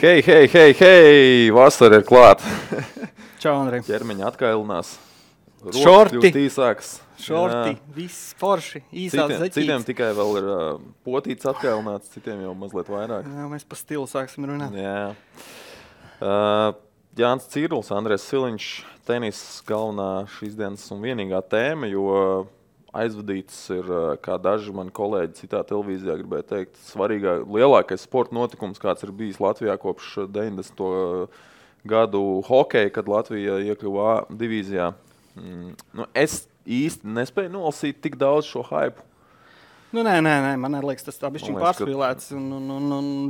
Hei! Vasara ir klāt. Čau, Andrej. Ķermeņa atkailinās. Šorti. Īsāks. Šorti, viss forši, īsās zeķītes. Citiem tikai vēl ir potīts atkailināts, citiem jau mazliet vairāk. Jā, mēs pa stilu sāksim runāt. Jā. Jānis Cirls, Andrēs Siliņš, tenis galvenā šīs dienas un vienīgā tēma, jo aizvadīts ir, kā daži mani kolēģi citā televīzijā gribēja teikt, lielākais sporta notikums, kāds ir bijis Latvijā kopš 90. Gadu hokeja, kad Latvija iekļuva A divīzijā. Es īsti nespēju nolasīt tik daudz šo hypu. Nē, man liekas, tas tā bišķiņ pārspīlēts. Un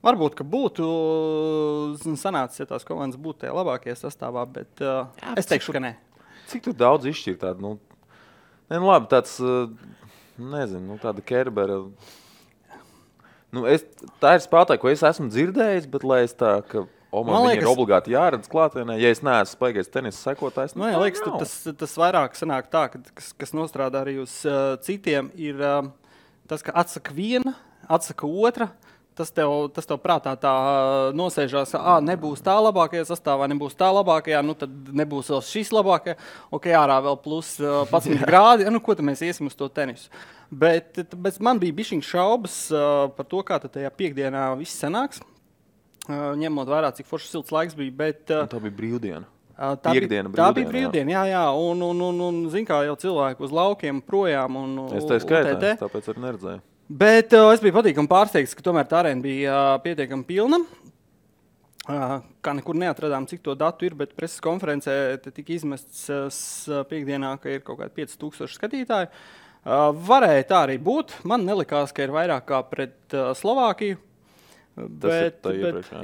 varbūt ka būtu sanācis, ja tās komandas būtu tajā labākajā sastāvā, bet es teikšu, ka nē. Cik tur daudz izšķir tādu, labi, tāds, nezinu, tāda Kerbera. Tā ir spēlētāja, ko es esmu dzirdējis, bet lai es tā, ka man liekas, ir obligāti jāredz klātienē, ja es neesmu spēcīgais tenisa sekotājs. Man liekas, tas vairāk sanāk tā, kas nostrādā arī uz citiem, ir tas, ka atsaka viena, atsaka otra. Tas tev prātā tā nosēžās, nebūs tā labākajā sastāvā, nebūs tā labākajā, tad nebūs vēl šis labākajā. Ok, ārā vēl plus 11 grādi, ko tad mēs iesim uz to tenisu. Bet man bija bišķiņ šaubas par to, kā tad tajā piekdienā viss sanāks. Ņemot vērā, cik foršs silts laiks bija, bet... Tā bija brīvdiena. Tā bija brīvdiena, jā. Un zin kā jau cilvēki uz laukiem projām un es tā skaitā, tāpēc arī neredzēju. Bet es biju patīkami pārsteigts, ka tomēr tā arēna bija pietiekami pilna. Kā nekur neatradām, cik to datu ir, bet preses konferencē tika izmests piekdienā, ka ir kaut kādi 5000 skatītāji. Varēja tā arī būt. Man nelikās, ka ir vairāk kā pret Slovākiju.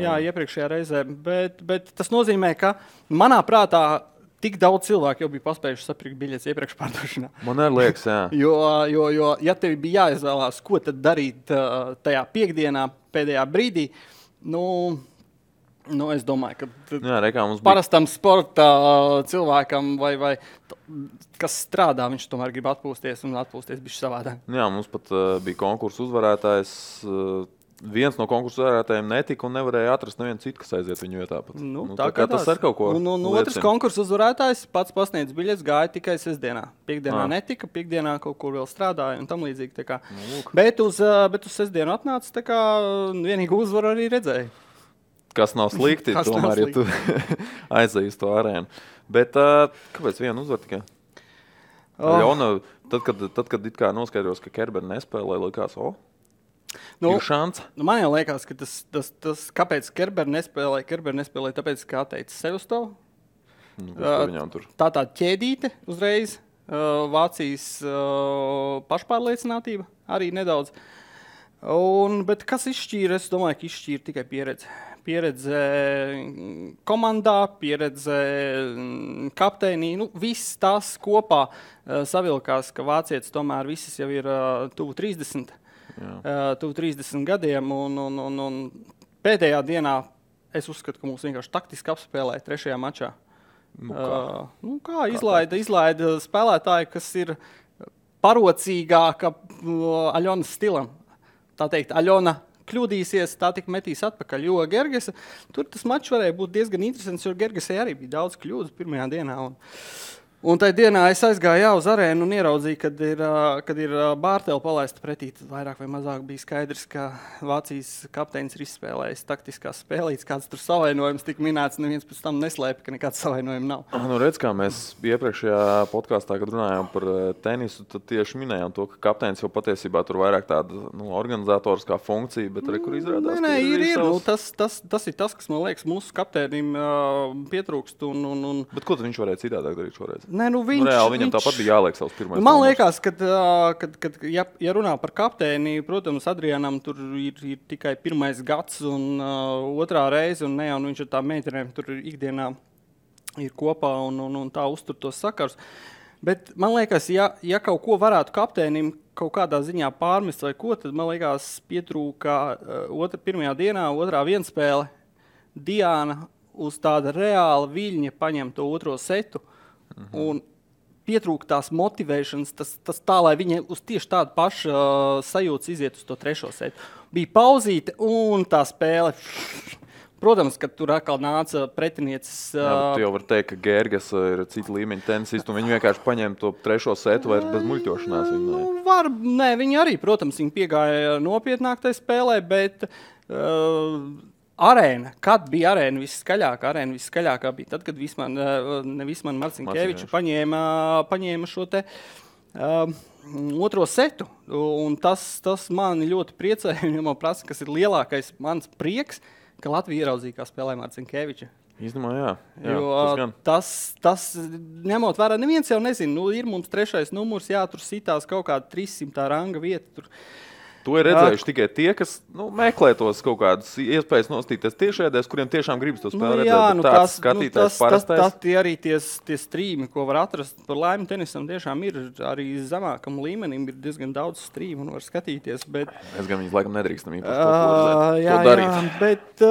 Iepriekšējā reizē. Bet tas nozīmē, ka manā prātā tik daudz cilvēku jau bija paspējuši sapirkt biļetes iepriekš pārdošanā. Man arī liekas, jā. Jo ja tev bija jāizvēlās, ko tad darīt tajā piekdienā, pēdējā brīdī, es domāju, ka parastam sporta cilvēkam vai kas strādā, viņš tomēr grib atpūsties un atpūsties bišķi savādāk. Jā, mums pat bija konkursu uzvarētājs. Viens no konkursu uzvarētājiem netika un nevarēja atrast nevienu citu, kas aiziet viņu vietā. Tā kā tas ar kaut ko liecina. Otrs konkursu uzvarētājs pats pasniedz biļetes, gāja tikai sestdienā. Piekdienā netika, piekdienā kaut kur vēl strādāja un tam līdzīgi. Bet uz sestdienu atnāca, tā kā vienīgu uzvaru arī redzēja. Kas nav slikti, tomēr, ja tu aizēji uz to arēnu. Bet kāpēc vienu uzvar tikai? Aļona, tad, kad it kā noskaidros, ka Kerbera nespēlē, likās, man jau liekas, ka tas kāpēc Kerbera nespēlē, tāpēc, ka atteica sev uz to. Tā ķēdīte uzreiz, Vācijas pašpārliecinātība arī nedaudz. Bet kas izšķīra? Es domāju, ka izšķīra tikai pieredze. Pieredze komandā, pieredze kapteinī. Viss tas kopā savilkās, ka vācietis tomēr visas jau ir tuvu 30. Tuvu 30 gadiem, un pēdējā dienā es uzskatu, ka mums vienkārši taktiski apspēlēja trešajā mačā. Izlaida spēlētāji, kas ir parocīgāka Aļonas stilam. Tā teikt, Aļona kļūdīsies, tā tik metīs atpakaļ, jo Gergesa, tur tas mačs varēja būt diezgan interesants, jo Gergesai arī bija daudz kļūdas pirmajā dienā. Un tajā dienā es aizgāju uz arēnu un ieraudzīju, kad ir Bārteli palaista pretī. Vairāk vai mazāk bija skaidrs, ka Vācijas kapteinis ir izspēlējis taktiskās spēlītes. Kāds tur savainojums tika minēts, neviens pēc tam neslēpa, ka nekāds savainojumi nav. Redz, kā mēs iepriekšējā podkāstā, kad runājām par tenisu, tad tieši minējām to, ka kapteinis jau patiesībā tur vairāk tāda organizatoriskā funkcija, bet arī kur izrādās. Tas ir tas, kas man liekas mūsu kapteinim pietrūkst. Bet ko tad viņš varēja citādāk darīt šoreiz? Viņam tāpat bija jāliek savs pirmais. Man liekas, ka ja runā par kapteini, protams, Adrianam tur ir tikai pirmais gads un otrā reize, un viņš ar tām meitenēm tur ikdienā ir kopā un tā uztur tos sakars. Bet man liekas, ja kaut ko varētu kapteinim kaut kādā ziņā pārmest vai ko, tad man liekas pietrūka pirmajā dienā, otrā vienspēle. Diana uz tāda reāla viļņa paņem to otro setu. Un pietrūka tās motivēšanas, tas tā, lai viņi uz tieši tādu pašu sajūtas iziet uz to trešo setu. Bija pauzīte un tā spēle. Protams, ka tur atkal nāca pretinieces. Tu jau vari teikt, ka Gergas ir cita līmeņa tenisists, un viņi vienkārši paņēma to trešo setu vairs bez muļķošanās. Viņi arī, protams, viņi piegāja nopietnāk tai spēlē, bet arēna, kad bija arēna viskaļākā bija tad, kad Visman Marcinkeviča paņēma šo te otro setu. Un tas mani ļoti priecēja, un man prasa, kas ir lielākais mans prieks, ka Latvija ieraudzīja, kā spēlē Marcinkeviča. Īstenībā, jā. Jo tas ņemot vērā, neviens jau nezina, ir mums 3. numurs, tur sitās kaut kāda 300 ranga vieta. To ir redzējuši tikai tie, kas meklē tos kaut kādas iespējas nostīties tiešēdēs, kuriem tiešām gribas to spēli redzēt. Tāds skatītājs parastais. Tas arī tie strīmi, ko var atrast par laimi tenisam, tiešām ir arī zemākam līmenim, ir diezgan daudz strīmu un var skatīties. Es gan viņus laikam nedrīkstam īpaši to darīt.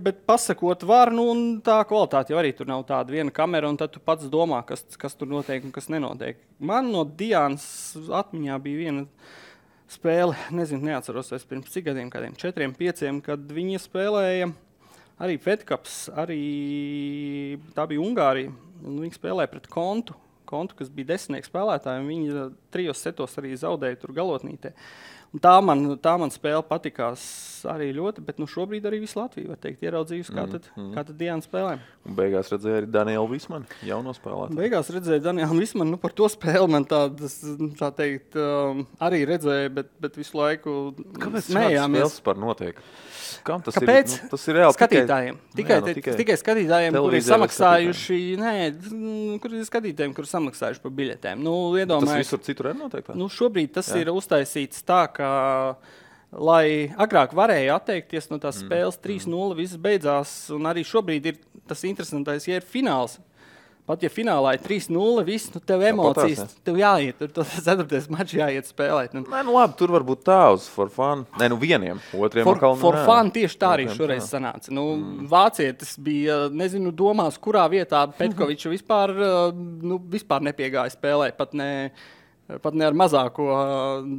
Bet pasakot var, un tā kvalitāte jau arī tur nav tāda viena kamera, un tad tu pats domā, kas tur notiek un kas nenotiek. Man no Diānas atmiņā bija viena spēle, neatceros vairs pirms cik gadiem, kādiem 4, 5, kad viņi spēlēja arī Fed Cups, arī tā bija Ungārija, un viņi spēlēja pret Kontu, kas bija 10 spēlētāji, un viņi 3 setos arī zaudēja tur galotnītē. Un tā man spēle patikās arī ļoti, bet šobrīd arī visu Latviju, var teikt, ieraudzījusi, kā tad Diana spēlē. Un beigās redzēja arī Danielu Vismanu, jauno spēlētāju. Beigās redzēja Danielu Vismanu, par to spēli man tā teikt, arī redzēja, bet visu laiku kāpēc spēles par notiek? Kāpēc? Tas ir reāli skatītājiem. Tikai skatītājiem, kuri ir samaksājuši, kuri samaksājuši par biļetēm. Tas visur citur ir noteikti? Šobrīd tas ir uztaisīts tā, ka, lai agrāk varēja atteikties no tās spēles 3-0, viss beidzās, un arī šobrīd ir tas interesantais, ja ir fināls. Pat ja finālā ir 3-0, viss, tev emocijas, tev jāiet, tur 4. mačs jāiet spēlēt. Labi, tur varbūt tā uz for fun. Vieniem, otriem atkal. For fun tieši tā arī šoreiz sanāca. Vācietis bija, domās, kurā vietā Petkoviča vispār nepiegāja spēlēt, pat ne ar mazāko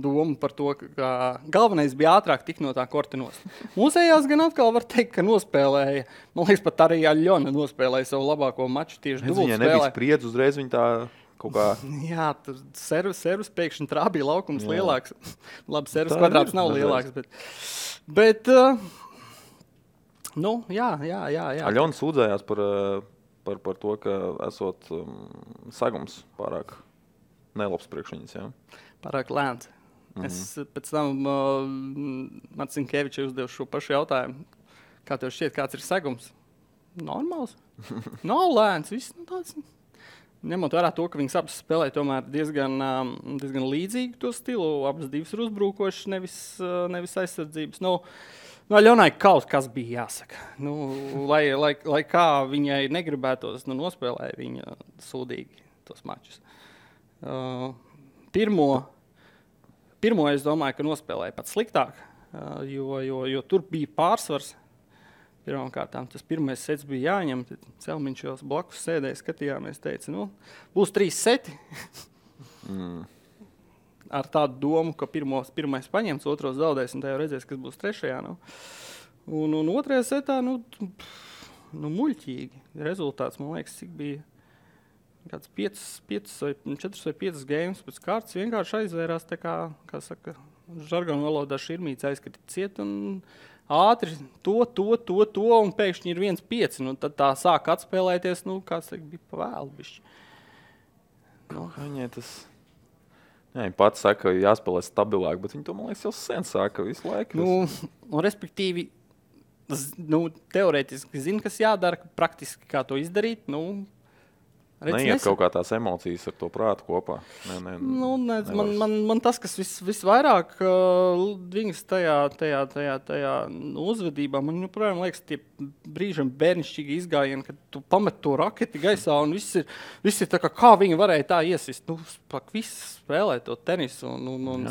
domu par to, ka galvenais bija ātrāk tik no tā korta nost. Mūsējās gan atkal var teikt, ka nospēlēja. Man liekas, pat arī Aļona nospēlēja savu labāko maču tieši dubult spēlē. Viņai nebija spriedz uzreiz, viņa tā kaut kā... Jā, tur servus pēkšņi trābīja laukums lielāks. Labi, servus kvadrāts nav lielāks, bet jā. Aļona sūdzējās par to, ka esot sagums pārāk nelabs priekš viņas, jā? Pārāk lēns. Es pēc tam Marcinkevičai uzdevu šo pašu jautājumu. Kā tev šķiet, kāds ir segums? Normāls. Nav lēns. Viss tāds. Ņemot vērā to, ka viņas abas spēlē tomēr diezgan līdzīgi to stilu. Abas divas ir uzbrukošas, nevis aizsardzības. Aļonai kaut kas bija jāsaka. Lai kā viņai negribētos, nospēlēja viņa sūdīgi tos mačus. Pirmo es domāju, ka nospēlēja pat sliktāk, jo tur bija pārsvars. Pirmkārtām tas pirmais sets bija jāņem, tad Celmiņš jau blakus sēdēja, skatījāmies, teica, būs 3 seti. Ar tādu domu, ka pirmais paņems, otros zaudēs, un tā jau redzēs, kas būs 3. Un otrajā setā, muļķīgi. Rezultāts, man liekas, cik bija kāds 4 vai 5 games pēc kārtas vienkārši aizvērās tā kā saka, žargonu valodā širmīts aizskatīt ciet un ātri to, un pēkšņi ir 1-5. Tad tā sāk atspēlēties, kāds bija pa vēlu bišķi. Viņai tas... Jā, viņa pats saka, ka jāspēlē stabilāk, bet viņa to, man liekas, jau sen saka visu laiku. Respektīvi, teorētiski zina, kas jādara, praktiski kā to izdarīt, Neiet kaut kā tās emocijas ar to prātu kopā. Man tas, kas visvairāk viņas tajā uzvedībā, man joprojām liekas tie brīžam bērnišķīgi izgājieni, kad tu pamet to raketi gaisā un viss ir tā kā viņi varēja tā iesist. Viss spēlē to tenisu un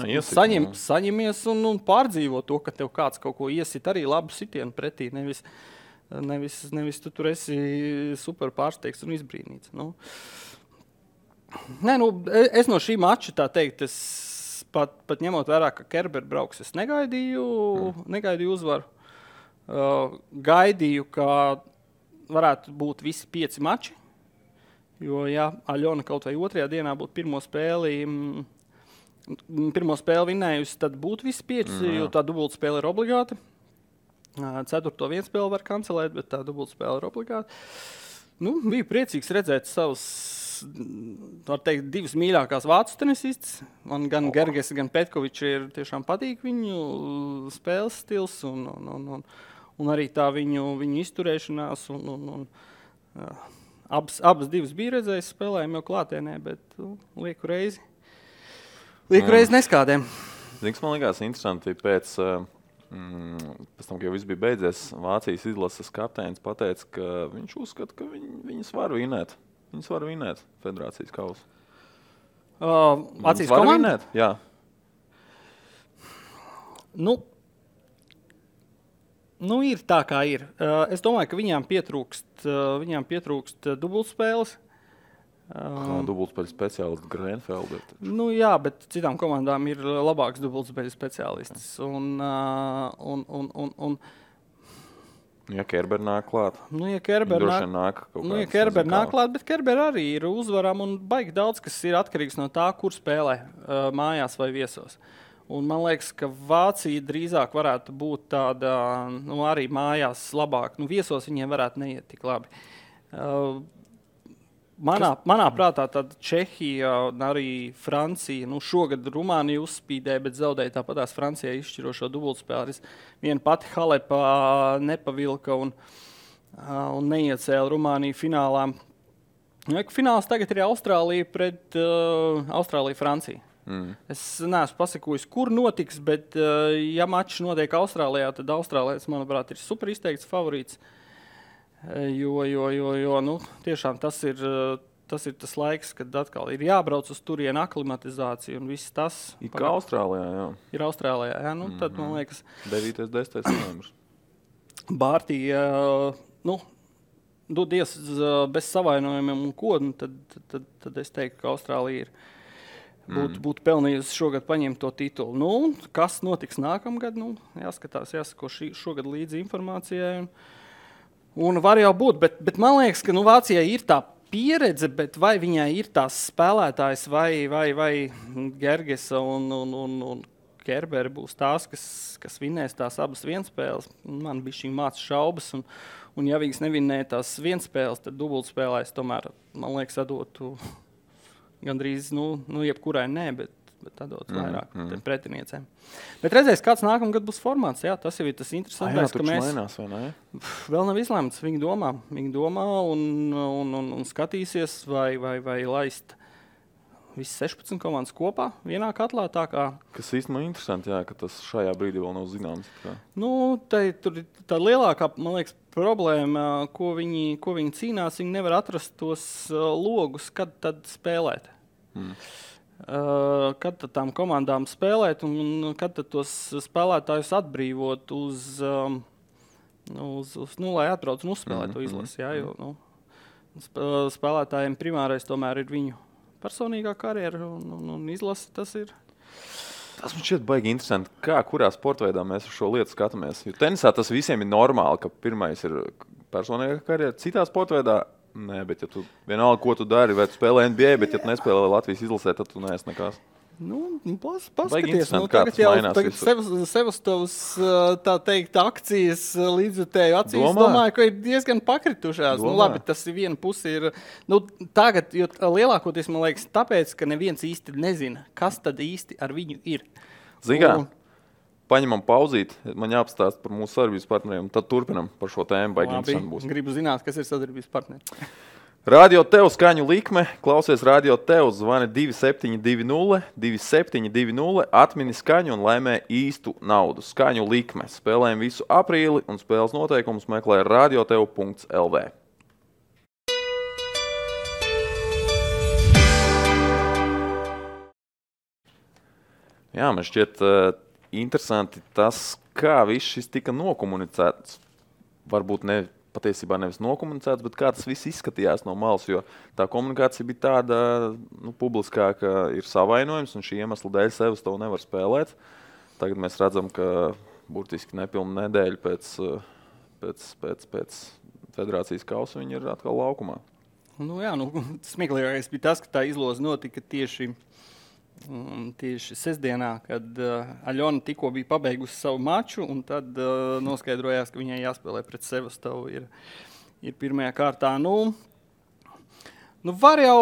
saņemies un pārdzīvo to, ka tev kāds kaut ko iesit arī labu sitienu pretī, Nevis tu tur esi super pārsteigts un izbrīnīts. Nē, nu, es no šī mača tā teikt, es pat ņemot vērā, ka Kerber brauks, es negaidīju uzvaru. Gaidīju, ka varētu būt visi 5 mači, jo, ja Aļona kaut vai 2. dienā būtu pirmo spēli vinnējusi, tad būtu visi 5, jo tā dubultspēle ir obligāta. 4. vienspēli var kancelēt, bet tā dubultspēle ir obligāta. Nu, biju priecīgs redzēt savus, var teikt, 2 mīļākās vācu tenisistas. Man gan Gerges, gan Petkovičs ir tiešām patīk viņu spēles stils un arī tā viņu izturēšanās. Abas divas bija redzējis spēlējumu jau klātienē, bet lieku reizi neskādēm. Ziniks, man likās interesanti pēc tam, ka jau viss bija beidzies, Vācijas izlases kapteinis pateica, ka viņš uzskata, ka viņas var vinēt. Viņas var vinēt federācijas kausu. Vācijas komanda? Jā. Nu, ir tā, kā ir. Es domāju, ka viņām pietrūkst dubultspēles. Dubultspēļu speciālists Grenfelder. Nu jā, bet citām komandām ir labāks dubultspēļu speciālists. Ja Kerber nāk klāt. Ja Kerber nāk klāt, bet Kerber arī ir uzvarām un baigi daudz, kas ir atkarīgs no tā, kur spēlē, mājās vai viesos. Un man liekas, ka Vācija drīzāk varētu būt tāda, arī mājās labāk. Viesos viņiem varētu neiet tik labi. Manā prātā tad Čehija un arī Francija, šogad Rumānija uzspīdēja, bet zaudēja tāpatās Francijai izšķirošo dubultspēli. Viena pati Halepā nepavilka un neiecēla Rumāniju finālā. Fināls tagad ir Austrālija pret Austrāliju-Franciju. Es neesmu pasakojis, kur notiks, bet ja mačs notiek Austrālijā, tad Austrālijas, manuprāt, ir super izteikts favorīts. Jo tiešām tas ir tas laiks, kad atkal ir jābrauc uz turienu aklimatizāciju un viss tas. Ir kā Austrālijā, jā. Ir Austrālijā, jā. Tad, man liekas, 9. 10. novembris. Bārtī, dodies bez savainojumiem un ko, tad es teiktu, ka Austrālija būtu pelnījusi šogad paņemt to titulu. Kas notiks nākamgad? Jāsako šogad līdzi informācijai. Un var jau būt, bet man liekas, ka Vācijai ir tā pieredze, bet vai viņai ir tās spēlētājs vai Gergesa un Kerberi būs tās, kas vinnēs tās abas vienspēles. Man bija šī māca šaubas, un ja viņas nevinnēja tās vienspēles, tad dubultspēlēs tomēr, man liekas, atdotu gandrīz, jebkurai nē, bet atdot vairāk pretiniecēm. Bet redzēs, kāds nākamgad būs formāts. Jā, tas jau ir tas interesantākais, ka mēs mainās, vai ne? Vēl nav izlēmts. Viņi domā un skatīsies, vai laist visi 16 komandas kopā vienā katlā. Kas īstenībā interesanti, jā, ka tas šajā brīdī vēl nav zināms. Tur ir tā lielākā, man liekas, problēma, ko viņi cīnās. Viņi nevar atrast tos logus, kad tad spēlēt. Kad tad tām komandām spēlēt un kad tad tos spēlētājus atbrīvot lai atbrauc un uzspēlēt to izlasi. Jā, jo spēlētājiem primārais tomēr ir viņu personīgā karjera un izlasi tas ir. Tas man šķiet baigi interesanti, kurā sportveidā mēs uz šo lietu skatāmies. Jo tenisā tas visiem ir normāli, ka pirmais ir personīgā karjera. Citā sportveidā nē, bet ja tu vienalga, ko tu dari, vai tu spēlē NBA, bet ja tu nespēlē Latvijas izlasē, tad tu neesi nekas. Paskaties, tagad jau Sevastovas, tā teikt, akcijas līdzjutēju acīs, domāju, ka ir diezgan pakritušās. Labi, tas ir viena pusi ir, tagad, jo lielākoties, man liekas, tāpēc, ka neviens īsti nezina, kas tad īsti ar viņu ir. Zini, paņemam pauzīt, man jāapstāst par mūsu sadarbības partneriem, tad turpinam par šo tēmu. Labi, gribu zināt, kas ir sadarbības partneri. Radio Tev skaņu likme, klausies Radio Tev, zvani 2720, 2720, atmini skaņu un laimē īstu naudu. Skaņu likme, spēlējam visu aprīli un spēles noteikumus meklē radiotev.lv. Jā, man šķiet interesanti tas, kā viss šis tika nokomunicēts. Varbūt ne patiesībā nevis nokomunicēts, bet kā tas viss izskatījās no malas, jo tā komunikācija bija tāda publiskā, ka ir savainojums un šī iemesla dēļ sevis to nevar spēlēt. Tagad mēs redzam, ka burtiski nepilnu nedēļu pēc federācijas kausa viņi ir atkal laukumā. Smieklīgākais bija tas, ka tā izloze notika tieši sestdienā, kad Aļona tikko bija pabeigusi savu maču, un tad noskaidrojās, ka viņai jāspēlē pret Sevastovu ir pirmajā kārtā. Var jau,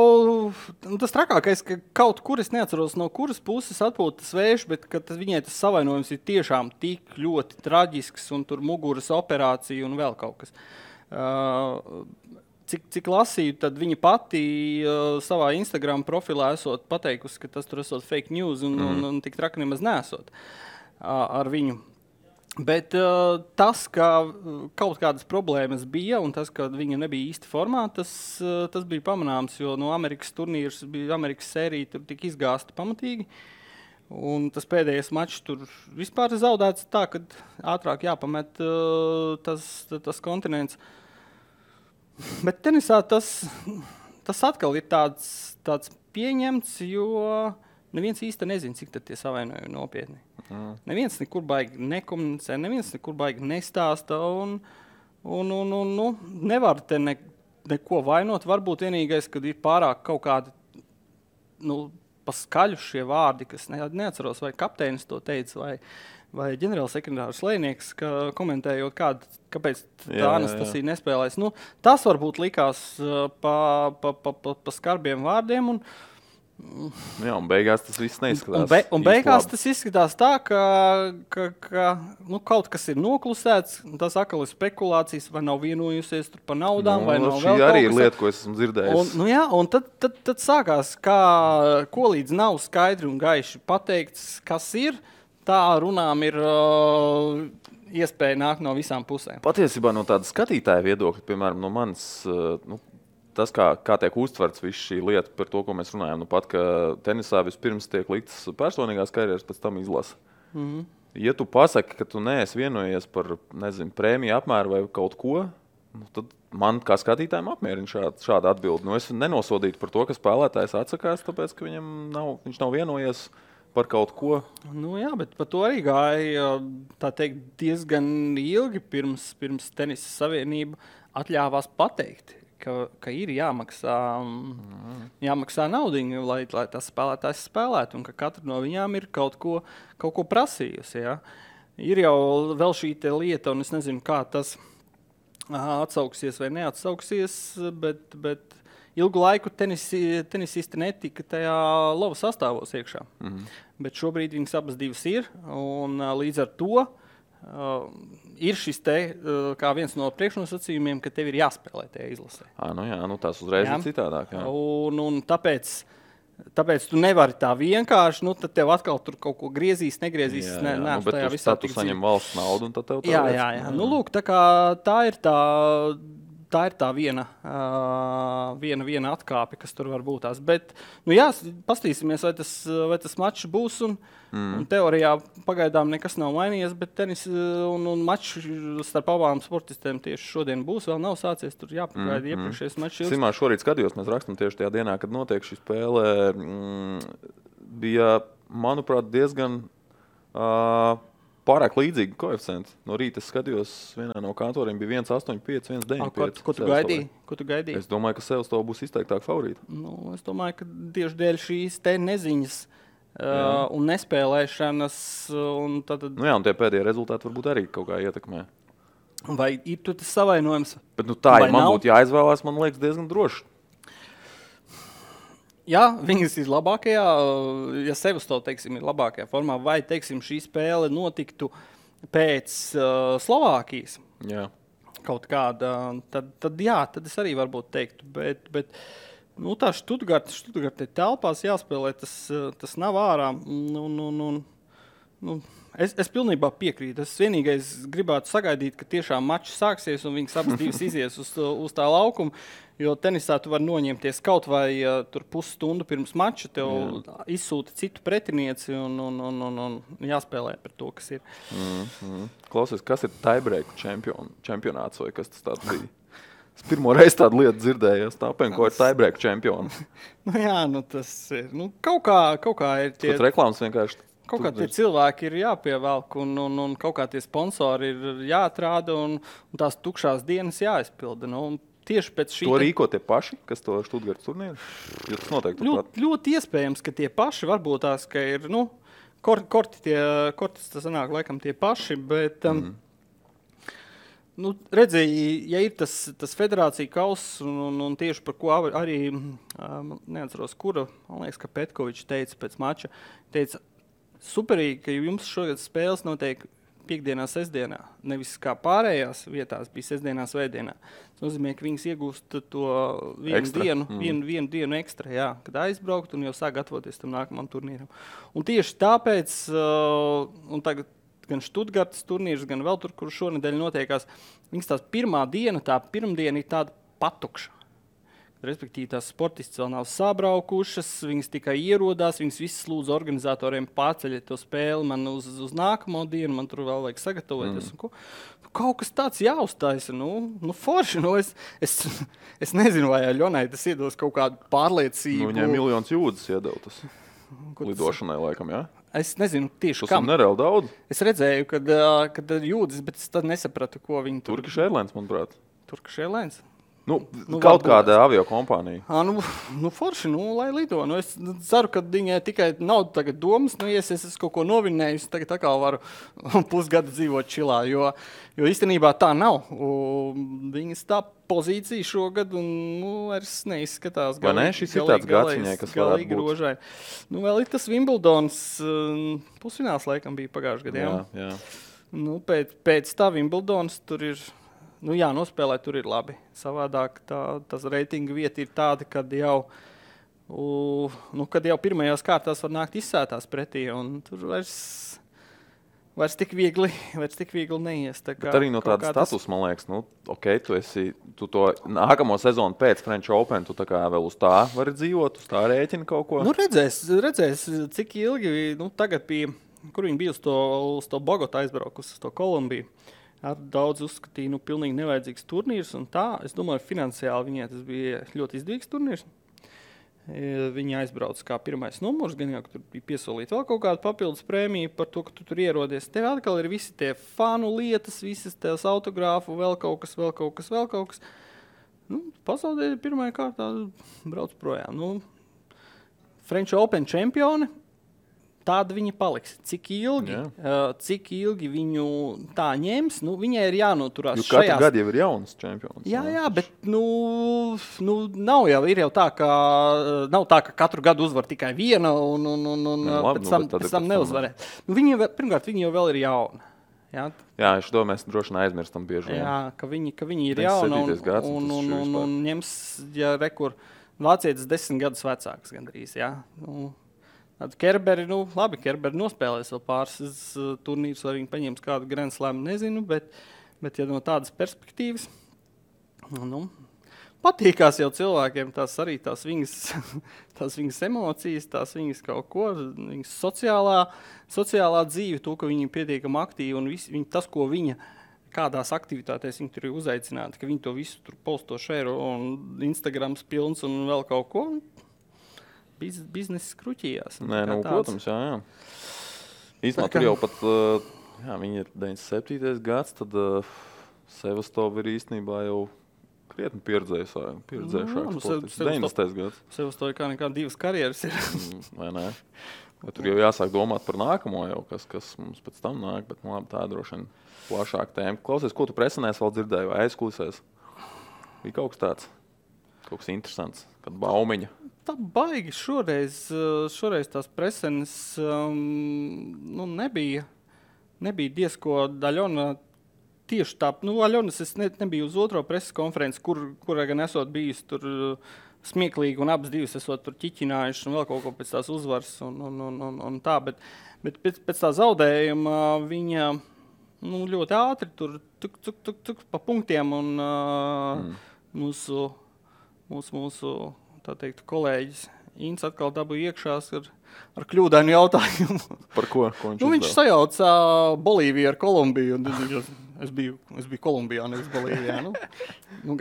tas trakākais, ka kaut kur es neatceros, no kuras puses atpūtas vējš, bet viņai tas savainojums ir tiešām tik ļoti traģisks, un tur muguras operācija un vēl kaut kas. Cik lasīju, tad viņa pati savā Instagram profilā esot pateikusi, ka tas tur esot fake news un tik traki nemaz nesot ar viņu. Bet tas, ka kaut kādas problēmas bija un tas, ka viņa nebija īsti formā, tas bija pamanāms, jo no Amerikas turnīrs bija Amerikas sērija, tur tika izgāsta pamatīgi. Un tas pēdējais mačs tur vispār zaudēts tā, ka ātrāk jāpamet tas kontinents. Bet tenisā tas atkal ir tāds pieņemts, jo neviens īsti nezina, cik tad tie savainojumi nopietni. Neviens nekur baigi nekomunicē, neviens nekur baigi nestāsta un nevar te neko vainot. Varbūt vienīgais, kad ir pārāk kaut kādi paskaļu šie vārdi, kas neatceros, vai kapteinis to teica, vai ģenerālsekretārs Lēnieks, komentējot, kāpēc tā Anastasija nespēlēs. Tas varbūt likās pa skarbiem vārdiem. Un beigās tas viss neizskatās. Un beigās tas izskatās tā, ka kaut kas ir noklusēts, tas atkal ir spekulācijas, vai nav vienojusies tur par naudām, vai nav vēl kaut kas. Šī arī ir lieta, ko esmu dzirdējis. Un tad sākās, ko līdz nav skaidri un gaiši pateikts, kas ir. Tā runām ir iespēja nākt no visām pusēm. Patiesībā no tāda skatītāja viedokļa, piemēram, no manis, tas, kā tiek uztverts viss šī lieta par to, ko mēs runājam, pat, ka tenisā vispirms tiek liktas personīgās karjeras, pēc tam izlasa. Ja tu pasaki, ka tu neesi vienojies par, prēmiju apmēru vai kaut ko, tad man kā skatītājiem apmierina šāda atbilde. Es nenosodītu par to, ka spēlētājs atsakās, tāpēc, ka viņš nav vienojies par kaut ko. Bet par to arī gāja, tā teikt, diezgan ilgi pirms Tenisa Savienība atļāvās pateikt, ka ir jāmaksā naudiņu, lai tas spēlētājs spēlētu, un ka katra no viņām ir kaut ko prasījusi. Ja? Ir jau vēl šī lieta, un es nezinu, kā tas atsauksies vai neatsauksies, bet ilgu laiku tenisisti netika tajā lova sastāvos iekšā. Bet šobrīd viņas abas divas ir, un līdz ar to ir šis kā viens no priekšnosacījumiem, ka tev ir jāspēlē tajā izlasē. Tās uzreiz ir citādāk. Jā. Un tāpēc tu nevari tā vienkārši, tad tev atkal tur kaut ko griezīs, negriezīs. Bet tad tu saņem valsts naudu, un tad tev tā jā. Lūk, tā ir tā viena atkāpe, kas tur var būt tās. Bet, pastīsimies, vai tas mačs būs, un teorijā pagaidām nekas nav mainījies, bet tenis un mačs starp abām sportistēm tieši šodien būs, vēl nav sācies, tur jāpagaida iepriekšējais mačs. Simā, šorīt skatījos, mēs rakstam tieši tajā dienā, kad notiek šī spēle, bija, manuprāt, diezgan pārāk līdzīgi koeficienti. No rīta es skatījos, vienā no kantoriem bija 1,85, 1,95. Ko tu gaidīji? Es domāju, ka Sevastova būs izteiktāk favorīta. Es domāju, ka tieši dēļ šīs te neziņas un nespēlēšanas. Un tie pēdējie rezultāti varbūt arī kaut kā ietekmē. Vai ir tur tas savainojums? Bet tā, ja man būtu jāizvēlās, man liekas diezgan droši. Jā, viņas ir labākajā, ja Sevastova, teiksim, ir labākajā formā, vai, teiksim, šī spēle notiktu pēc Slovākijas. Jā. Kaut kāda, tad es arī varbūt teiktu, bet tā Štutgarte telpās jāspēlē, tas nav ārā. Es pilnībā piekrītu. Es vienīgais gribētu sagaidīt, ka tiešām mačs sāksies un viņas abas divas izies uz tā laukuma, jo tenisā tu vari noņemties kaut vai tur pusstundu pirms mača, tev izsūta citu pretinieci un jāspēlē par to, kas ir. Klausies, kas ir tiebreak čempionāts vai kas tas tāds bija? Es pirmo reizi tādu lietu dzirdēju, tāpēc, ko ir tiebreak čempioni. Tas ir. Kaut kā ir tie... Kaut reklāmas vienkārši... Kaut kā tie cilvēki ir jāpievelk un kaut kā tie sponsori ir jāatrāda un tās tukšās dienas jāizpilda. Tieši pēc šī... To rīko tie paši, kas to Štutgartas turnīru? Jo tas noteikti ļoti iespējams, ka tie paši varbūt tās, ka ir, korti tas sanāk laikam tie paši, bet... Redzēji, ja ir tas federācija kauss un tieši par ko arī, neatceros, kura, man liekas, ka Petkovičs teica pēc mača, teica, superīgi, ka jums šogad spēles notiek piekdienā, sestdienā, nevis kā pārējās vietās bija sestdienā, svētdienā. Tas nozīmē, ka viņas iegūst to vienu dienu ekstra, kad aizbraukt un jau sāk gatavoties tam nākamam turnīram. Un tieši tāpēc, un tagad gan Štutgartas turnīrs, gan vēl tur, kur šonedēļ notiekās, viņas tās pirmdiena ir tāda patukša. Respektīvi, tās sportists vēl nav sabraukušas, viņas tikai ierodās, viņas visas lūdzu organizatoriem pārceļiet to spēli man uz nākamo dienu, man tur vēl vajag sagatavoties. Kaut kas tāds jāuztaisa, forši, es nezinu, vai Aļonai tas iedos kaut kādu pārliecību. Viņai miljonus jūdzes iedeva tas lidošanai laikam, jā? Es nezinu tieši kam. Tas nereāli daudz. Es redzēju, kad jūdzes, bet es tad nesapratu, ko viņi tur... Turkish Airlines, manuprāt. Turkish Airlines? Kaut kāda aviokompānija. Forši, lai lido. Es ceru, ka viņai tikai nav tagad domas, ja es kaut ko novinēju, tagad atkal varu pusgadu dzīvot čilā, jo īstenībā tā nav. Viņas tā pozīcija šogad vairs neizskatās galīgi rožai. Vēl ir tas Wimbledons pusfināls laikam bija pagājušajā gadā. Jā. Pēc tā Wimbledons tur ir... nospēlēt tur ir labi. Savādāk tas reitinga vieta ir tāda, kad jau pirmajās kārtās var nākt izsētās pretī, un tur vairs tik viegli neies. Bet arī no tāda status, man liekas, tu to nākamo sezonu pēc French Open, tu tā kā vēl uz tā vari dzīvot, uz tā rēķina kaut ko? Redzēs, cik ilgi, tagad bija, kur viņi bija uz to Bogotu aizbraukus, uz to Kolumbiju. Daudz uzskatīja, pilnīgi nevajadzīgs turnīrs, un tā, es domāju, finansiāli viņai tas bija ļoti izdevīgs turnīrs. Viņi aizbrauc kā pirmais numurs, gan jau, ka tur bija piesolīta vēl kaut kāda papildus prēmija par to, ka tu tur ierodies. Tev atkal ir visi tie fanu lietas, visas tās autogrāfu, vēl kaut kas. Pasaulē pirmajā kārtā brauc projām. French Open čempioni. Tāda viņa paliks. Cik ilgi viņu tā ņems, viņai ir jānoturās šajās... Katru gadu jau ir jauns čempions. Jā, bet ir jau tā, ka katru gadu uzvar tikai viena un pēc tam neuzvarē. Pirmkārt, viņa jau vēl ir jauna. Jā, es domāju, mēs droši aizmirstam bieži. Jā, ka viņa ir jauna un ņems, vācietis 10 gadus vecāks gandrīz, jā. Kerberi, Kerberi nospēlēs vēl pāris turnīrus, vai viņi paņems kādu Grand Slam, nezinu, bet ja no tādas perspektīvas, patīkās jau cilvēkiem tās viņas emocijas, tās viņas kaut ko, viņas sociālā dzīve, to, ka viņi ir pietiekami aktīvi un tas, ko viņa kādās aktivitātēs viņi tur ir uzaicināti, ka viņi to visu tur posto šēro un Instagrams pilns un vēl kaut ko. Biznesa skruķījās. Protams, jā. Īstenībā tur jau pat, viņi ir 97. gads, tad Sevastova ir īstenībā jau krietni pieredzējušāks sportists. 90. gads. Sevastova kā nekā 2 karjeras ir. Vai ne? Bet tur jau jāsāk domāt par nākamo jau, kas mums pēc tam nāk, bet tā droši vien plašāka tēma. Klausies, ko tu presenēs vēl dzirdēji vai aizkulisēs? Bija kaut kas tāds? Kaut kas interesants, kad baumiņa. Tā baigi šoreiz tās presenes nebija diezko Aļona tieši tā. Aļonas es nebiju uz otro preses konferenci, kurā gan esot bijis tur smieklīgi, un abas divas esot tur ķiķinājuši un vēl kaut ko pēc tās uzvaras un tā, bet pēc tā zaudējuma viņa ļoti ātri tur tuk pa punktiem un mūsu tā teikt, kolēģis Ints atkal dabūja iekšās ar kļūdainu jautājumu. Par ko viņš viņš sajauca Bolīviju ar Kolumbiju. Es biju Kolumbijā, nevis Bolīvijā.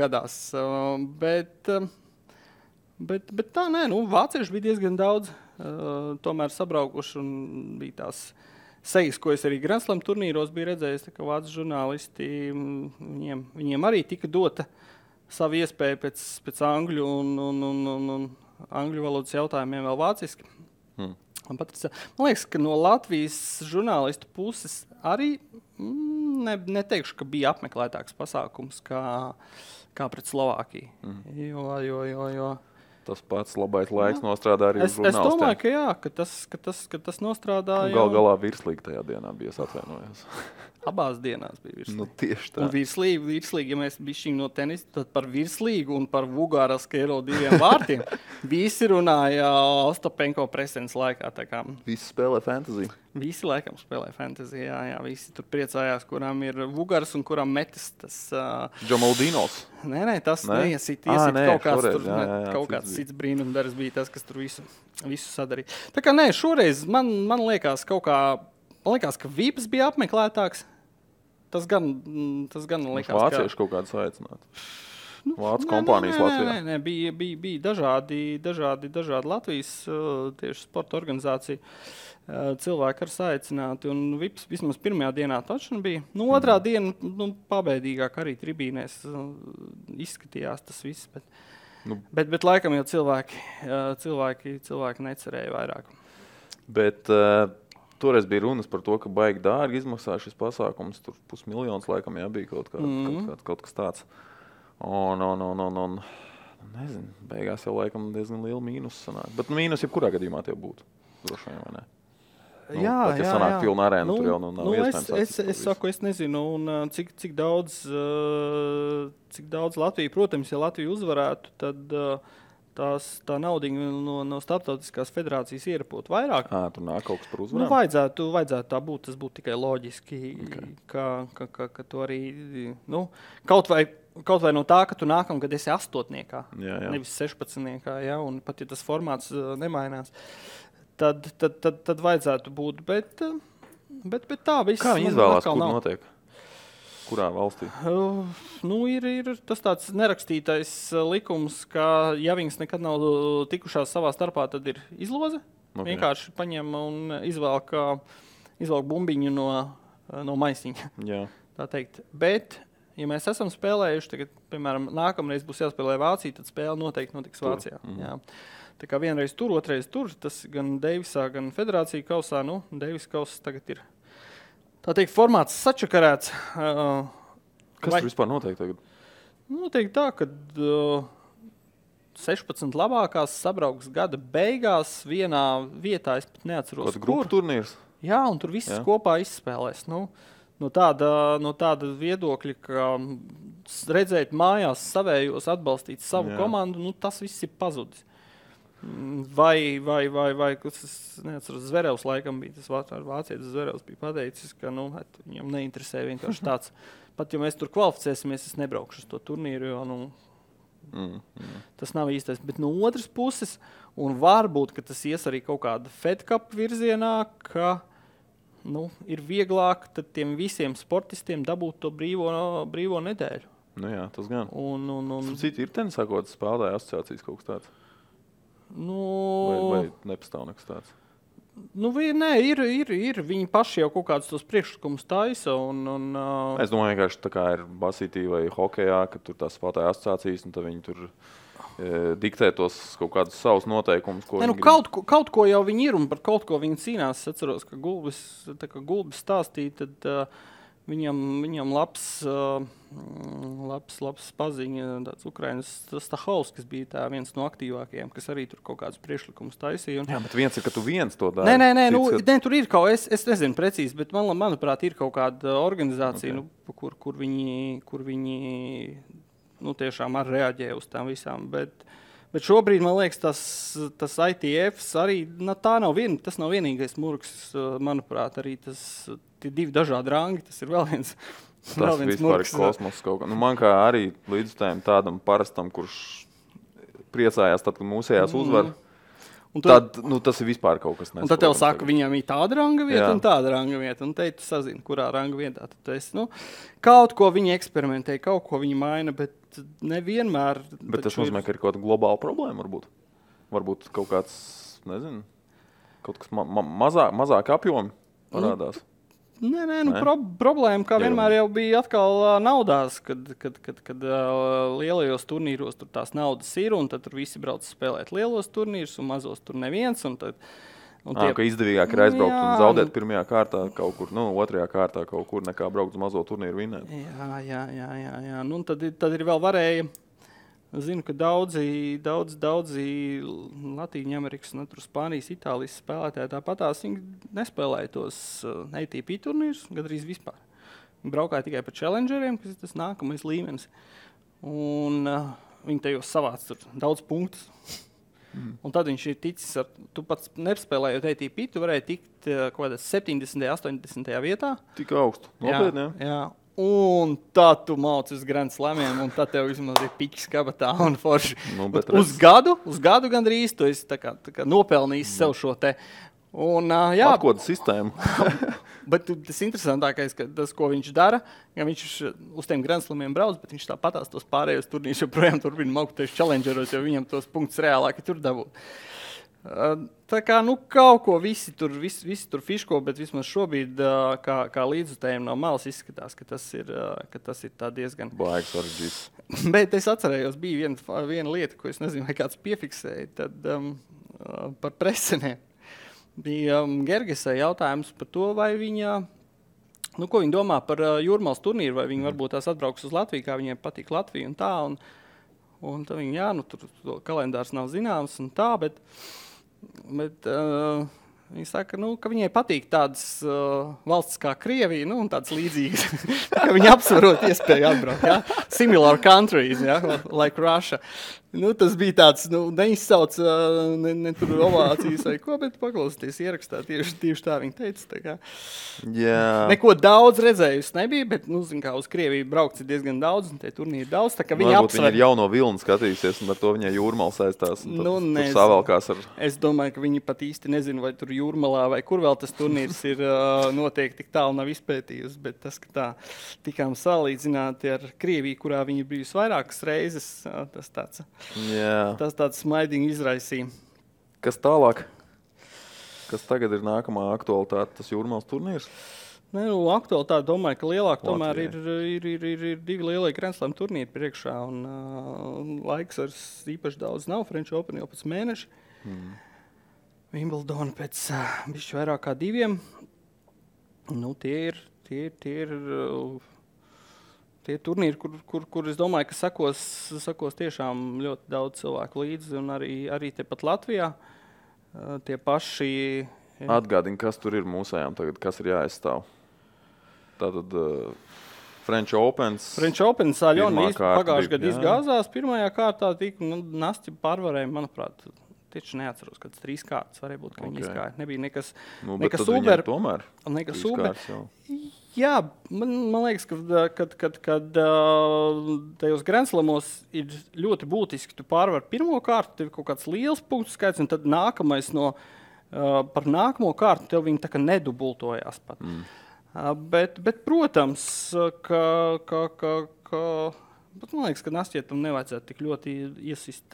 Gadās. Bet tā, vācieši bija diezgan daudz tomēr sabraukuši un bija tās sejas, ko es arī Grand Slam turnīros biju redzējis, tā kā vācu žurnālisti, viņiem arī tika dota savu iespēju pēc angļu un angļu valodas jautājumiem vēl vāciski. Man liekas, ka no Latvijas žurnālistu puses arī neteikšu, ka bija apmeklētāks pasākums kā pret Slovākiju. Jo tas pats labais laiks nostrādā arī uz žurnālistiem. Es domāju, ka jā, ka tas nostrādāja. Galā virslīgi tajā dienā bija, es atvainojos. Abās dienās bija virslīgi. Tieši tā. Un virslīgi, ja mēs bišķiņ no tenisa, tad par virslīgu un par Vugāras-Kero 2 vārtiem visi runāja Ostapenko presens laikā. Visi spēlē fantasy. Visi laikam spēlē fantasy, jā. Visi tur priecājās, kurām ir Vugārs un kurām metis tas... Džamaldinos. Nē, tas neiesit kaut kāds šoreiz, tur, kaut kāds cits brīnumdars bija tas, kas tur visu sadarīja. Tā kā šoreiz man liekas man liekas, ka Vips bija apmeklētāks. Tas gan liekas, vācieši kaut kāds aicināt. Vācu kompānijas Latvijā. Nē, bija dažādi Latvijas tieši sporta organizācija cilvēki ar saicināti, un Vips vismaz pirmajā dienā taču bija. Otrā diena pabeidīgāk arī tribīnēs izskatījās tas viss, bet laikam jau cilvēki necerēja vairāk. Bet toreiz bija runas par to, ka baigi dārgi izmaksā šis pasākums, tur 500 000 laikam bija kaut kas tāds. Un nezinu, beigās jau laikam diezgan liela mīnus sanāk. Bet mīnus jebkurā gadījumā tie būtu, droši vien, vai ne? Jā. Sanāk pilna arēna, tur jau nav iespējams. Es saku, es nezinu, un cik daudz Latvija, protams, ja Latvija uzvarētu, tad tā naudiņa no starptautiskās federācijas ierapot vairāk. Tur nāk kaut kas par uzvarām? Vajadzētu tā būt, tas būtu tikai loģiski, ka tu arī, kaut vai no tā, ka tu nākamgad esi 8. Nevis 16. Un pat ja tas formāts nemainās, tad vajadzētu būt, bet tā viss. Kā viņi izvēlās, kur notiek? Kurā valstī? Ir tas tāds nerakstītais likums, ka ja viņas nekad nav tikušās savā starpā, tad ir izloze. Okay. Vienkārši paņem un izvelk bumbiņu no maisiņa. Jā. Tā teikt. Bet, ja mēs esam spēlējuši, tagad, piemēram, nākamreiz būs jāspēlē Vācija, tad spēle noteikti notiks Vācijā. Jā. Tā kā vienreiz tur, otrais tur, tas gan Deivisā, gan Federācija kausā, Deivis kauss tagad ir, tā teikt, formāts sačakarēts. Kas tur vispār notiek tagad? Notiek tā, ka 16 labākās sabrauks gada beigās vienā vietā, es pat neatceros, kur. Grupu turnīrs? Jā, un tur visas kopā izspēlēs. No tāda viedokļa, ka redzēt mājās savējos, atbalstīt savu komandu, tas viss ir pazudis. Vai, es neatceros, Zverevs laikam bija, tas vācietis Zverevs bija pateicis, ka viņam neinteresē vienkārši tāds. Pat ja mēs tur kvalificēsimies, es nebraukšu uz to turnīru, jo tas nav īstais. Bet no otras puses, un varbūt, ka tas ies arī kaut kāda Fed Cup virzienā, ka ir vieglāk tad tiem visiem sportistiem dabūt to brīvo nedēļu. Jā, tas gan. Citi ir tenisā kaut kāds spēlētāju asociācijas kaut kas tāds? Vai nepastāv nekas tāds? Nē, ir. Viņi paši jau kaut kādus tos priekšlikumus taisa. Es domāju, vienkārši tā kā ir basītī vai hokejā, ka tur tās spēlētāju asociācijas, un tad viņi tur diktē tos kaut kādus savus noteikumus. Kaut ko jau viņi ir, un par kaut ko viņi cīnās. Es atceros, ka Gulbis stāstīja, tad viņam labs paziņa, tāds Ukrainas Stahovskis bija viens no aktīvākajiem, kas arī tur kaut kādus priekšlikumus taisīja. Jā, bet viens ir, ka tu viens to dari. Nē, tur ir kaut, es nezinu precīzi, bet manuprāt ir kaut kāda organizācija, kur viņi tiešām arī reaģē uz tām visām, bet Bet šobrīd, man liekas, tas ITF arī tas nav vienīgais murgs, manuprāt, arī tie 2 dažādi rangi, tas ir vēl viens. Tas vispār ir kosmos kaut kā. Nu, man kā arī līdzutējiem tādam parastam, kurš priecājās tad, kad mūsējās uzvar, tad, tas ir vispār kaut kas nesaprotams. Un tad tev saka, viņam ir tāda ranga vieta un tāda ranga vieta. Un te tu sazini, kurā ranga vietā. Tad tu esi, kaut ko viņi eksperimentē, kaut ko viņi maina, bet nevienmēr. Bet tas nozīmē, ka ir kaut kāda globāla problēma varbūt. Varbūt kaut kāds, nezinu, kaut kas mazāk apjomi parādās. Nē, problēma, kā vienmēr jau bija atkal naudās, kad lielajos turnīros tur tās naudas ir, un tad tur visi brauc spēlēt lielos turnīrus, un mazos tur neviens. Ka izdevīgāk ir aizbraukt un zaudēt pirmajā kārtā kaut kur, otrajā kārtā kaut kur, nekā braukt uz mazo turnīru vinēt. Jā. Tad ir vēl varēja. Zinu, ka daudzi Latīņu Amerikas, Spānijas, Itālijas spēlētāji tāpatās viņi nespēlēja tos ATP turnīrus, gandrīz vispār. Viņi braukāja tikai pa challengeriem, kas ir tas nākamais līmenis. Un viņi tajos savāc tur daudz punktus. Un tad viņš ir ticis, tu pats nespēlējot ATP, tu varēji tikt kaut kādā 70. 80. vietā. Tik augstu, nopietni, jā. Un tad tu mauc uz Grand Slamiem, un tad tev vismaz ir piķis kabatā un forši. Uz gadu gandrīz tu esi tā kā nopelnījis sev šo te. Un, atkoda sistēmu. Bet tas interesantākais, ka tas, ko viņš dara, ja viņš uz tiem Grand Slamiem brauc, bet viņš tāpatās tos pārējos turnīrus joprojām turpina maukties challengeros, jo viņam tos punktus reālāki tur dabūt. Tā kā, kaut ko visi tur fiško, bet vismaz šobrīd, kā līdzutējiem no malas izskatās, ka tas ir tā diezgan... Baigs sarežģīts. Bet es atcerējos, bija viena lieta, ko es nezinu, vai kāds piefiksēja, tad par preseniem. Bija Gergesai jautājums par to, vai viņa... ko viņa domā par Jūrmālas turnīru, vai viņa varbūt tās atbrauks uz Latviju, kā viņiem patīk Latvija un tā, un tad viņa, tur kalendārs nav zināms un tā, bet viņi saka, ka viņai patīk tādas valsts kā Krievija, un tādas līdzīgas, ka viņi apsvarot iespēju atbraukt, ja? Similar countries, ja? Like Russia. Tas bija tāds, neizsauc ne tur ovācijas vai ko, bet paklausīties ierakstā, tieši tā viņa teica. Tā kā. Jā. Neko daudz redzējusi nebija, bet, kā uz Krieviju braukts ir diezgan daudz, un tie turnīri daudz, tā kā viņa apsver. Viņa ir jauno vilni skatījusies, un ar to viņai Jūrmala saistās, un tur savalkās ar... Es domāju, ka viņi pat īsti nezinu, vai tur Jūrmalā, vai kur vēl tas turnīrs ir noteikti tik tālu nav izpētījusi, bet tas, ka tā tikām salīdzināti ar Krieviju, kurā viņa bijusi vairākas reizes, tas tāds... Jā. Tas tāds smaidīgi izraisīja. Kas tālāk? Kas tagad ir nākamā aktualitāte, tas Jūrmālas turnīrs? Aktualitāte, domāju, ka lielāk tomēr ir 2 lielie Grand Slam turnīri priekšā, un laiks ar īpaši daudz nav. French Open jau pēc mēneša. Wimbledon pēc bišķi vairāk kā 2. Tie turnīri, kur es domāju, ka sakos tiešām ļoti daudz cilvēku līdzi, un arī tepat Latvijā. Tie paši... Atgādini, kas tur ir mūsējām tagad, kas ir jāaizstāv. Tātad French Opens. Aļona pagājušajā gadā izgāzās. Pirmajā kārtā Nastja pārvarēja, manuprāt, tieši neatceros, kad 3 kārtas varēja būt, ka viņi izgāja. Nebija nekas super. Tomēr nekas super. Jā, man liekas, ka tajos Grand Slamos ir ļoti būtiski, tu pārvar pirmo kārtu, tev ir kaut kāds liels punktu skaits, un tad nākamais par nākamo kārtu tev viņi tā kā nedubultojās pat. Bet, protams, bet man liekas, ka Nastietam nevajadzētu tik ļoti iesist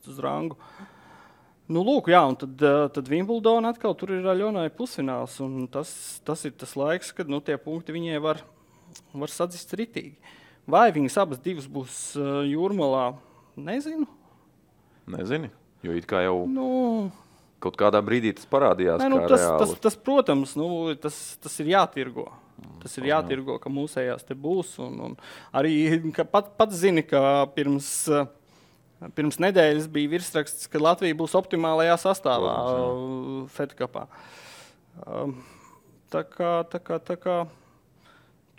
uz rangu. Lūk, jā, un tad Wimbledon atkal tur ir Aļonai pusfināls, un tas ir tas laiks, kad tie punkti viņai var sadzist ritīgi. Vai viņas abas divas būs Jūrmalā, nezinu. Nezini, jo it kā jau kaut kādā brīdī tas parādījās kā reāli. Tas, protams, tas ir jātirgo. Tas ir jātirgo, ka mūsējās te būs, un arī pats zini, ka Pirms nedēļas bija virsraksts, ka Latvija būs optimālajā sastāvā Fed Cupā. Tā kā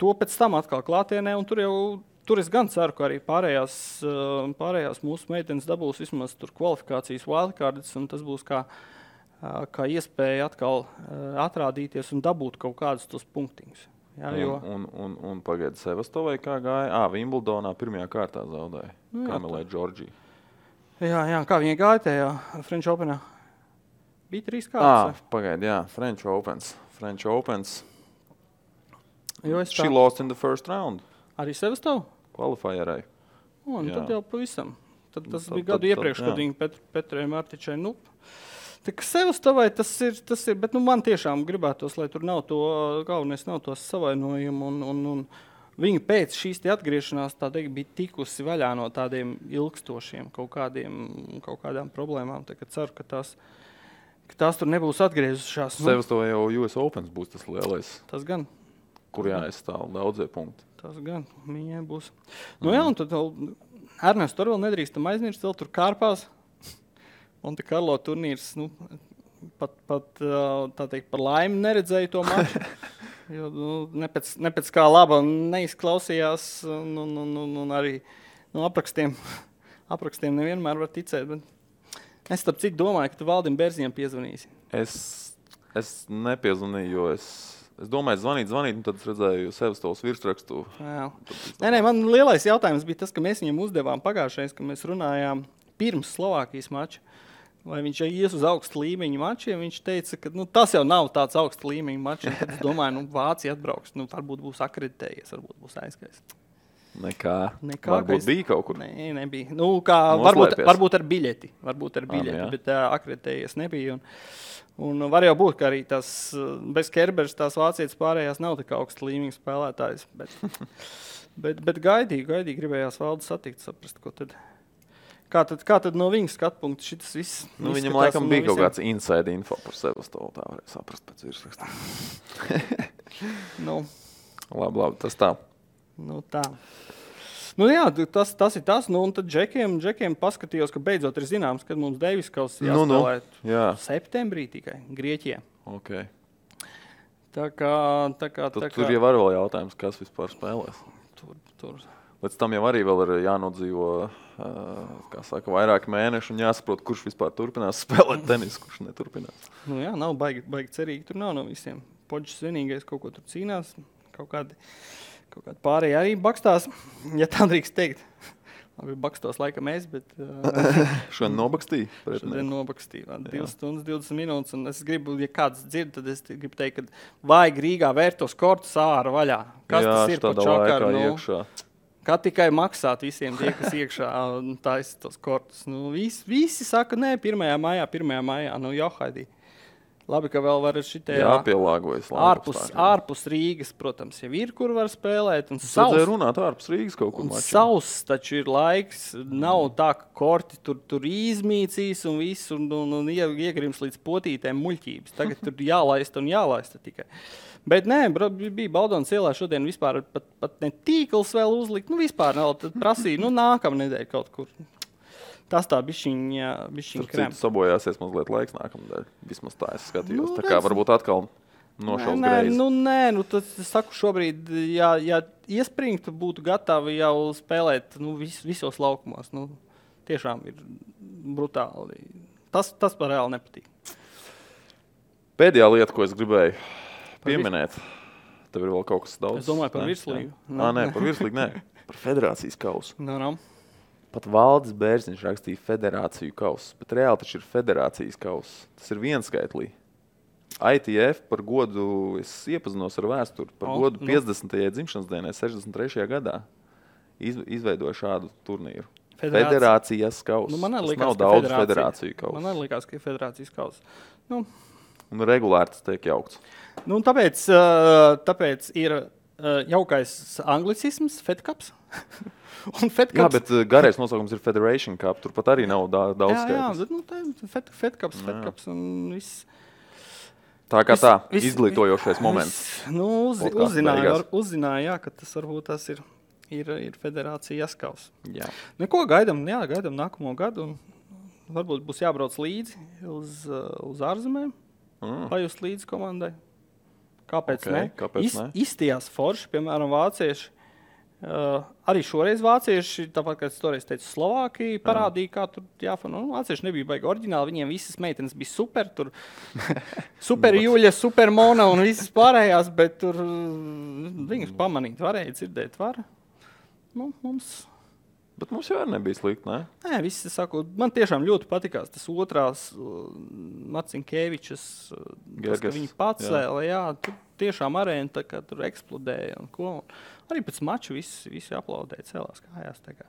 to pēc tam atkal klātienē, un tur jau tur es gan ceru, ka arī pārējās mūsu meitenes dabūs vismaz tur kvalifikācijas wildcards, un tas būs kā iespēja atkal atrādīties un dabūt kaut kādus tos punktiņus. Jā, jo... Un pagaidi Sevastovai kā gāja? Wimbledonā pirmajā kārtā zaudēja. Kamilē Džordžija. Jā, kā viņa gāja tajā French Openā? Bija 3 kārtas. Pagaidi, jā, French Opens. She Tā... lost in the first round. Arī Sevastovu? Qualifierai. Tad jau pavisam. Tad bija gadu iepriekš, kad viņa Petrai Martičai, tā kā Sevastovai tas ir, bet man tiešām gribētos, lai tur nav to, galvenais nav tos savainojumu, un viņa pēc šīs atgriešanās, tā teikt, bija tikusi vaļā no tādiem ilgstošiem kaut kādām problēmām, tā kā ceru, ka tās tur nebūs atgriezušās. Sevastovai jau US Opens būs tas lielais. Tas gan. Kur jāaizstāv daudzie punkti. Tas gan, viņai būs. Jā, un tad Ernests tur vēl nedrīkstam aizmirst, vēl tur kārpās. Monte Carlo turnīrs, pat tā teikt, par laimi neredzēju to maču, jo ne pēc kā laba neizklausījās, un arī aprakstiem nevienmēr var ticēt, bet es starp citu domāju, ka tu Valdim Bērziņam piezvanīsi. Es nepiezvanīju, jo es domāju zvanīt, un tad es redzēju Sevastovas virsrakstu. Nē, man lielais jautājums bija tas, ka mēs viņam uzdevām pagājušais, ka mēs runājām pirms Slovākijas mača. Vai viņš ies uz augstu līmeņu mačiem, viņš teica, ka tas jau nav tāds augstu līmeņu mačs. Tad es domāju, Vācija atbrauks, varbūt būs akreditējies, varbūt būs aizgājis. Nekā varbūt bija kaut kur? Nē, nebija. Varbūt ar biļeti, bet akreditējies nebija. Un var jau būt, ka arī tas bez Kerbers tās vācietis pārējās nav tik augstu līmeņu spēlētājs. Bet gaidīgi gribējās Valdu satikt, saprast, ko tad... Kā tad no viņas skatpunkta šitas viss? Viņam laikam bija kaut kāds inside info par Sevastovu, tā varēja saprast pēc virsrakstā. Labi, tas tā. Tā. Jā, tas ir tas. Un tad Džekiem paskatījos, ka beidzot ir zināms, kad mums Deivis Kauss jāspēlēt septembrī tikai, Grieķijā. Okay. Tā kā... Tur jau var vēl jautājums, kas vispār spēlēs. Tur. Līdz tam jau arī vēl ir jānodzīvo, vairāki mēneši un jāsaprot, kurš vispār turpinās spēlēt tenisu, kurš neturpinās. Jā, nav baigi cerīgi, tur nav no visiem. Poģis vienīgais kaut ko tur cīnās, kaut kādi pārējie arī bakstās, ja tā drīkst teikt. Labi, bakstos laikam es, bet... Šodien nobakstīja? Šodien nobakstīja. 2 stundas, 20 minūtes, un es gribu, ja kāds dzird, tad es gribu teikt, ka vajag Rīgā vērtos kortus ārā vaļā. Kas tas ir par čakaru? Iekšā. Kā tikai maksāt visiem tie, kas iekšā taisa tos kortus. Visi saka, nē, 1. maijā. Johaidī. Labi, ka vēl var šitajā... Jāpielāgojas. Ārpus Rīgas, protams, jau ir, kur var spēlēt. Un vajadzēja runāt ārpus Rīgas kaut kur maču. Sauss taču ir laiks. Nav tā, ka korti tur izmīcīs un viss, un iegrims līdz potītēm muļķības. Tagad tur jālaista tikai. Bet nē, bija Baldonas ielā šodien vispār pat ne tīkls vēl uzlikt. Vispār vēl prasīja, nākamā nedēļa kaut kur. Tas tā bišķiņ krem. Tur sabojāsies mazliet laiks nākamnedēļ. Vismaz tā es skatījos. Tā kā varbūt atkal nošaus greizi. Tad es saku šobrīd, ja iespringtu, būtu gatavi jau spēlēt visos laukumos. Tiešām ir brutāli. Tas par reāli nepatīk. Pēdējā lieta, ko es gribēju pieminēt. Tev ir vēl kaut kas daudz? Es domāju par virslīgu. Nē, par virslīgu nē. Par federācijas kausu. No. Pat Valdis Bērziņš rakstīja federāciju kausu, bet reāli taču ir federācijas kausu. Tas ir vienskaitlī. ITF par godu, es iepazinos ar vēsturi, par godu 50. dzimšanas dienai 63. gadā izveidoja šādu turnīru. Federācijas kausu. Tas nav daudz federāciju kausu. Man arī likās, ka ir federācijas kausu. Un regulāri tas tiek jaukts. Tāpēc ir jaukais anglicisms, Fed Cups. Jā, bet garais nosaukums ir Federation Cup. Tur pat arī nav daudz skaitlis. Jā, Fed Cups un viss. Tā kā izglītojošais moments. Uzzināja, ka tas varbūt tas ir federācijas kaus. Jā. Neko gaidam nākamo gadu. Un varbūt būs jābrauc līdzi uz ārzemēm. Pajust līdzi komandai. Kāpēc ne? Kāpēc ne? Izstījās forši, piemēram, vācieši. Arī šoreiz vācieši, tāpat kā es toreiz teicu, Slovākija parādīja, kā tur jāfana. Vācieši nebija baigi oriģināli, viņiem visas meitenes bija super, tur super Juļa, super Mona un visas pārējās, bet tur viņus pamanīt varēja, dzirdēt var. Bet mums jau nebija slikti, ne? Nē, visi saku, man tiešām ļoti patikās tas otrās Marcinkēvičas, tas, ka viņi pacēla, jā, tur tiešām arēna tā kā tur eksplodēja un ko. Arī pēc maču visi aplaudēja, celās kājās. Tā kā.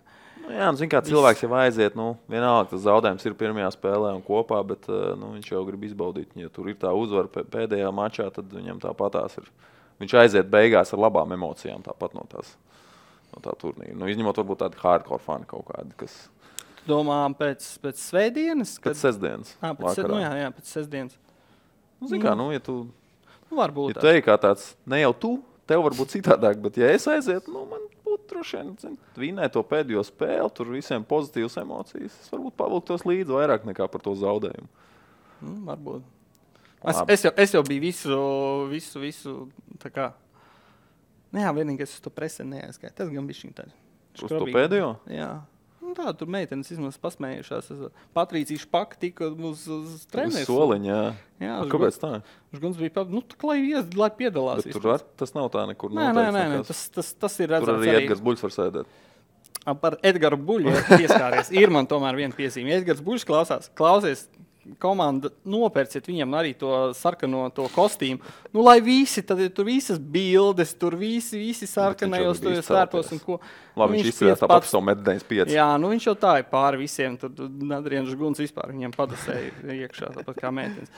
Jā, zin kā cilvēks jau aiziet, vienalga tas zaudējums ir pirmajā spēlē un kopā, bet viņš jau grib izbaudīt. Ja tur ir tā uzvara pēdējā mačā, tad viņam tāpatās ir. Viņš aiziet beigās ar labām emocijām tāpat no tā turnīra. Izņemot varbūt tādi hardcore fani kaut kādi, kas... Tu domā pēc svētdienas? Pēc sestdienas. Pēc sestdienas. Zin kā, ja tu... Varbūt. Ja tu ej kā tāds, ne jau tu, tev varbūt citādāk, bet ja es aizietu, man būtu droši vien, vinēt to pēdējo spēli, tur visiem pozitīvas emocijas. Es varbūt pavilktos līdzi vairāk nekā par to zaudējumu. Varbūt. Es jau biju visu tā kā... Jā, vienīgais uz to presi neaizskāja. Tas gan bišķiņ tādi. Uz to pēdējo? Jā. Tā, tur meitenes izmaz pasmējušās. Patrīcija Špaka tika uz treneris. Uz soliņa, jā. Kāpēc tā? Uz guns bija tā, lai piedalās. Bet tur tas nav tā nekur Nē, tas ir redzams. Tur arī Edgars Buļs var sēdēt. Par Edgaru Buļu pieskāries. Ir man tomēr viena piezīme. Edgars Buļs klausies, komanda nopērciet viņam arī to sarkano to kostīmu. Lai visi, tad tur visas bildes, tur visi sarkanajos svērtos un ko. Labi, viņš izcēlās tāpat savu 1,95 m. Jā, viņš jau tā ir pāri visiem. Tur Adrians Guns vispār viņam padasēja iekšā, tāpat kā meitenes.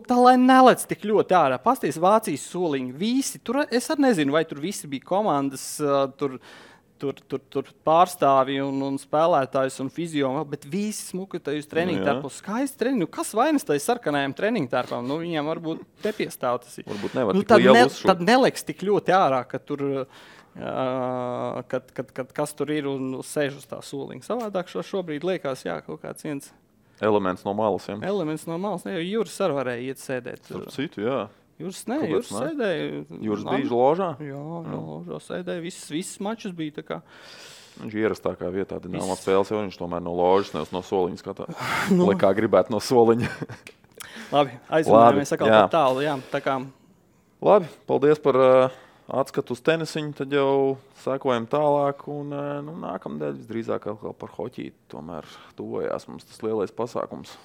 Tā lai nelec tik ļoti ārā. Pasties Vācijas soliņi. Visi, tur es arī nezinu, vai tur visi bija komandas, tur pārstāvi un spēlētājs un fizio, bet visi smuki tajos treniņu tērpos. Skaisti treniņu. Kas vainas tajos sarkanajiem treniņu tērpām? Viņiem varbūt te piestāv tas ir. Varbūt nevar tik lielu uzšūt. Tad neliks tik ļoti ārā, ka tur, kad kas tur ir un sēž uz tā soliņa. Savādāk šobrīd liekas, kaut kāds viens... Elements no malas, jā. Elements no malas. Ne, jo Juris arī varēja iet sēdēt. Starp citu, jā. Juris sēdēja. Juris bija ložā? Jā, ložā sēdēja. Viss mačus bija tā kā. Viņš ierastākā vietā Dinamo spēles, jo viņš tomēr no ložas, nevis no soliņa skatā. Lai kā gribētu no soliņa. Labi, aizvinājāmies atkal par tālu, jā. Tā kā... Labi, paldies par atskatu uz tenisiņu, tad jau sekojam tālāk un nākamdēļ visdrīzāk atkal par hoķīti. Tomēr tuvojās mums tas lielais pasākums.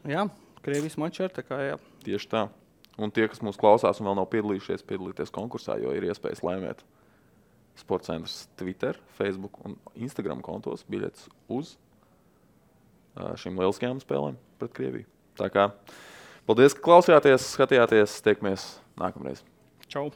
Jā, Krievijas mačs ir tā kā, jā. Tieši tā. Un tie, kas mūs klausās un vēl nav piedalīties konkursā, jo ir iespējas laimēt Sportcentrs Twitter, Facebook un Instagram kontos biļetes uz šīm lieliskajām spēlēm pret Krieviju. Tā kā paldies, ka klausījāties, skatījāties, tiekamies nākamreiz. Čau!